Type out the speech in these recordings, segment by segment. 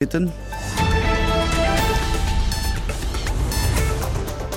Bitten.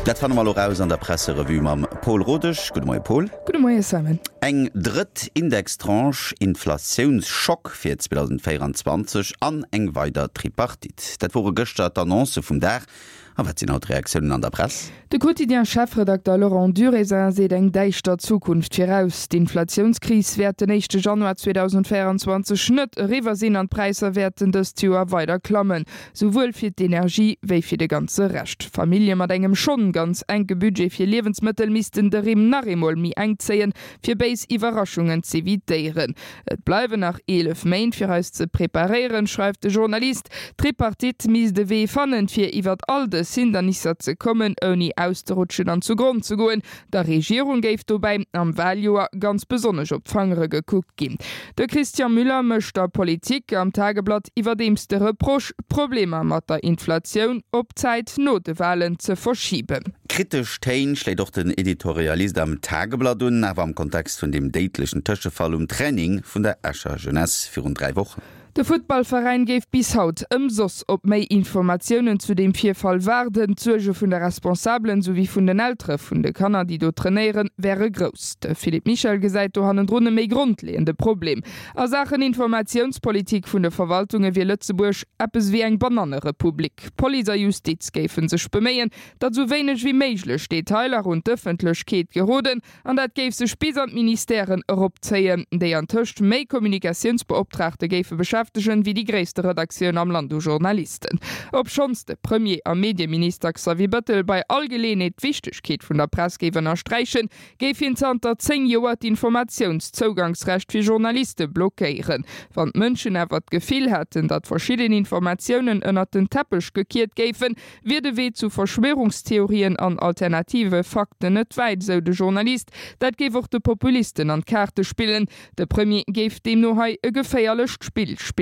Dat fanne mer elo raus an der Presserevue mam Paul Rodesch. Gudde Moie Paul. Gudde Moie Simon. Eng drëtt Indextranche, Inflatiounschock fir 2024 an eng weider Tripartite. Dat wore gëschter d'Annoncë vum Dag. A wat sinn haut d'Reaktiounen an der Press? De Quotidien-Chefredakter Laurent Durézin seet eng däischter Zukunft viraus. D'Inflatiounskris wäert den éischte Januar 2024 net eriwwer sinn an d'Präisser wäerten dëst Joer weider klammen, souwuel fir d'Energie wéi fir de ganze Rescht. Famillje mat engem schonn ganz enke Budget fir Liewensmëttel missten de Rimm nach eemol méi enk zéien, fir béis Iwwerraschungen z'evitéieren. Et bleiwen nach 11 Méint fir eis ze preparéieren, schreift de Journalist. D'Tripartite misst e Wee fannen, fir iwwert all dës Hindernisser ze kommen, ouni auszerutschen an zu Gronn ze goen. Der Regierung géif dobäi am Waljoer ganz besonnesch op d'Fangere gekuckt ginn. De Christian Müller mécht der Politik am Tageblatt iwwerdeems de Reproche, d'Problemer mat der Inflatioun op d'Zäit no de Walen ze verschiben. Kritesch Téin schléit och den Editorialist am Tageblatt un, awer am Kontext vun deem déidlechen Tëschefall um Training vun der Escher Jeunesse virun 3 Wochen. De Futtballveräin géif bis haut ëmsoss op méi Informatiounen zu deem Virfall waarden. D'Suerge vun de Responsabelen souwéi vun den Eltere vun de Kanner, déi do trainéieren, wäre grouss. De Philippe Michel gesäit do hannendrun e méi grondleeënde Problem. A Saachen Informatiounspolitik vun de Verwaltunge wier Lëtzebuerg eppes ewéi eng Banannerepublik. Police a Justiz géife sech beméien, datt esou wéineg wéi méiglech Detailer un d'Ëffentlechkeet geroden an dat géif sech bis an d'Ministèren eropzéien, déi antëscht méi Kommunikatiounsbeoptraagte géife beschäftegen, wéi déi gréisste Redaktioun am Land u Journalisten. Obschonns de Premier a Medieminister Xavier Bettel bei all Geleeënheet d'Wichtegkeet vun der Press géif ënnersträichen, géif hien zanter 10 Joer d'Informatiounszougangsrecht fir Journaliste blockéieren. Wann d'Mënschen awer d'Gefill hätten, datt verschidden Informatiounen ënnert den Teppech gekiert géifen, wier de Wee zu Verschwörungstheorien an alternative Fakten net wäit, esou de Journalist. Dat géif och de Populisten an d'Kaarte spillen. De Premier géif deemno hei e geféierlecht Spill spillen.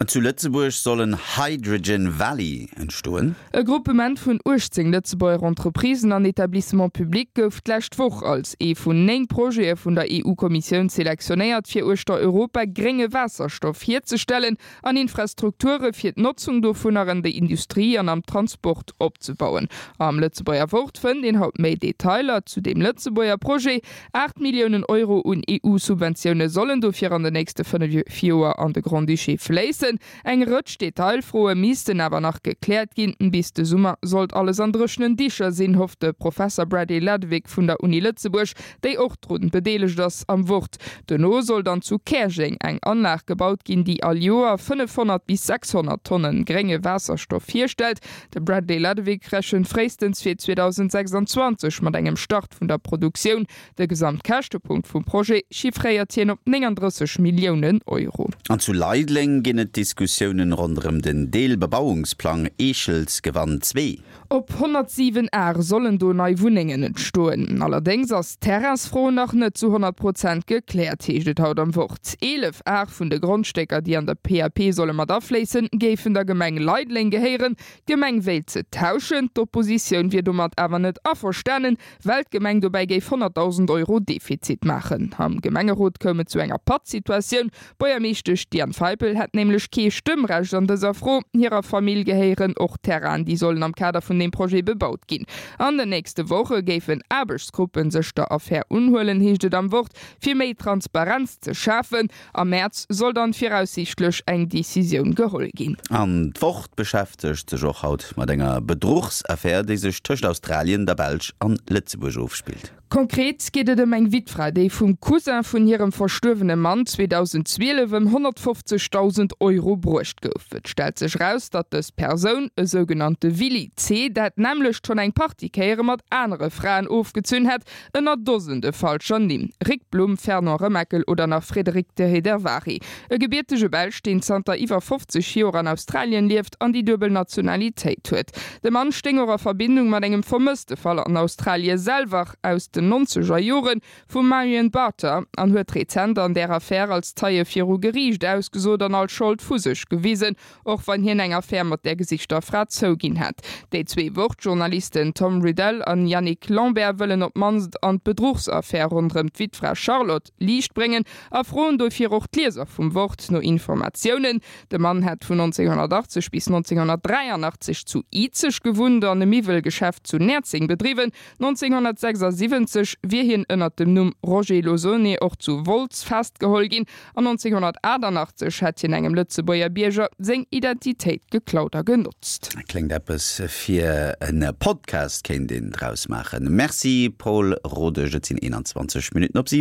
Zu Lëtzebuerg soll en Hydrogen Valley entstoen. E Gruppement vun 18 Lëtzebuerger Entreprisen an Etablissements publics gouf d'lescht Woch als ee vun 9 Projete vun der EU-Kommissioun selektionéiert, fir uechter Europa grénge Waasserstoff hierzestellen an Infrastrukture fir d'Notzung dovunner an der Industrie an am Transport opzebauen. Am Lëtzebuerger Wort fënnt een haut méi Detailer zu deem Lëtzebuerger Projet. 8 Milliounen Euro un EU-Subventioune sollen dofir an den nächste 5 Joer an de Grand-Duché fléissen. Eng Rëtsch Detailfroe missten awer nach gekläert ginn. Bis de Summer sollt alles an dréchenen Dicher sinn, hofft de Professer Bradley Ladewig vun der Uni Lëtzebuerg, déi och drun bedeelegt ass, am Wort. Dono soll dann zu Käerjeng eng Anlag gebaut ginn, déi all Joer 500 bis 600 Tonne grénge Waasserstoff hierstellt. De Bradley Ladewig rechent fréistens fir 2026 mat engem Start vun der Produktioun. De Gesamtkäschtepunkt vum Projet chiffréiert hien op 39 Milliounen Euro. An zu Leideleng ginn et Diskussiounen ronderëm den Deelbebauungsplang Eechelsgewann 2. Op 107 Ar sollen do nei Wunnengen entstoen. Allerdéngs ass d'Terrainsfro nach net zu 100 Prozent gekläert, heescht et haut am Wort. 11 Ar vun de Grondstécker, déi an der PAP solle mat afléissen, géifen der Gemeng Leideleng gehéieren. D'Gemeng wéilt se tauschen. D'Oppositioun wier domat awer net averstanen, well d'Gemeng dobäi géif 100.000 Euro Defizit maachen. Am Gemengerot koum et zu enger Pattsituatioun. D'Buergermeeschtesch Diane Feipel hätt nämlech kee Stëmmrecht an dëser Fro. Hirer Famill gehéieren och Terrainen, déi sollen am Kader vun deem Projet bebaut ginn. An den nächste Woche géifen Aarbechtsgruppe sech der Affär unhuelen, heescht et am Wort, fir méi Transparenz ze schafen. Am Mäerz soll dann viraussiichtlech eng Decisioun geholl ginn. An d'Wort beschäftegt sech och haut mat enger Bedruchsaffär, déi sech tëscht Australien, der Belsch an Lëtzebuerg ofspillt. Konkret geet et ëm eng Wittfra, déi vum Cousin vun hirem verstuerwene Mann 2012 ëm 150.000 Euro bruecht gouf. Et stellt sech eraus, datt dës Persoun, e sougenannte Willy C. dat nämmlecht schonn eng Partie Kéiere mat anere Fraen ofgezunn hätt, ënner Dosende falscher Nimm, Rick Blum, Fernand Remakel oder nach Frédéric de Héderváry. E gebiertege Belsch, deen zanter iwwer 50 Joer an Australien lieft an déi duebel Nationalitéit huet. De Mann stéing och a Verbindung mat engem vermësste Fall an Australie selwer aus. den nonzeger Jore vum Marion Barter an huet rezent an där Affär als Zeie viru Geriicht ausgesot an all Schold vu sech gewisen, och wann hien eng Affär mat där gesichter Fra zouginn hätt. Déi zwee Wort-Journalisten Tom Riddell an Yannick Lambert wëllen op d'mannst an d'Bedruchsaffär ronderëm d'Wittfra Charlotte Liicht bréngen a froen dofir och d'Lieser vum Wort no Informatiounen. De Mann hätt vun 1980 bis 1983 zu Izeg gewunnt an e Miwwelgeschäft zu Näerzeng bedriwwen. 1976 wier hien ënnert dem Numm Roger Losone och zu Wolz festgeholl ginn an 1988 hätt hien engem Lëtzebuerger Bierger seng Identitéit geklaut a genotzt. Kléngt eppes fir en Podcast, kéint een draus maachen. Merci Paul Rodesch, et sinn 21 Minutten op 7.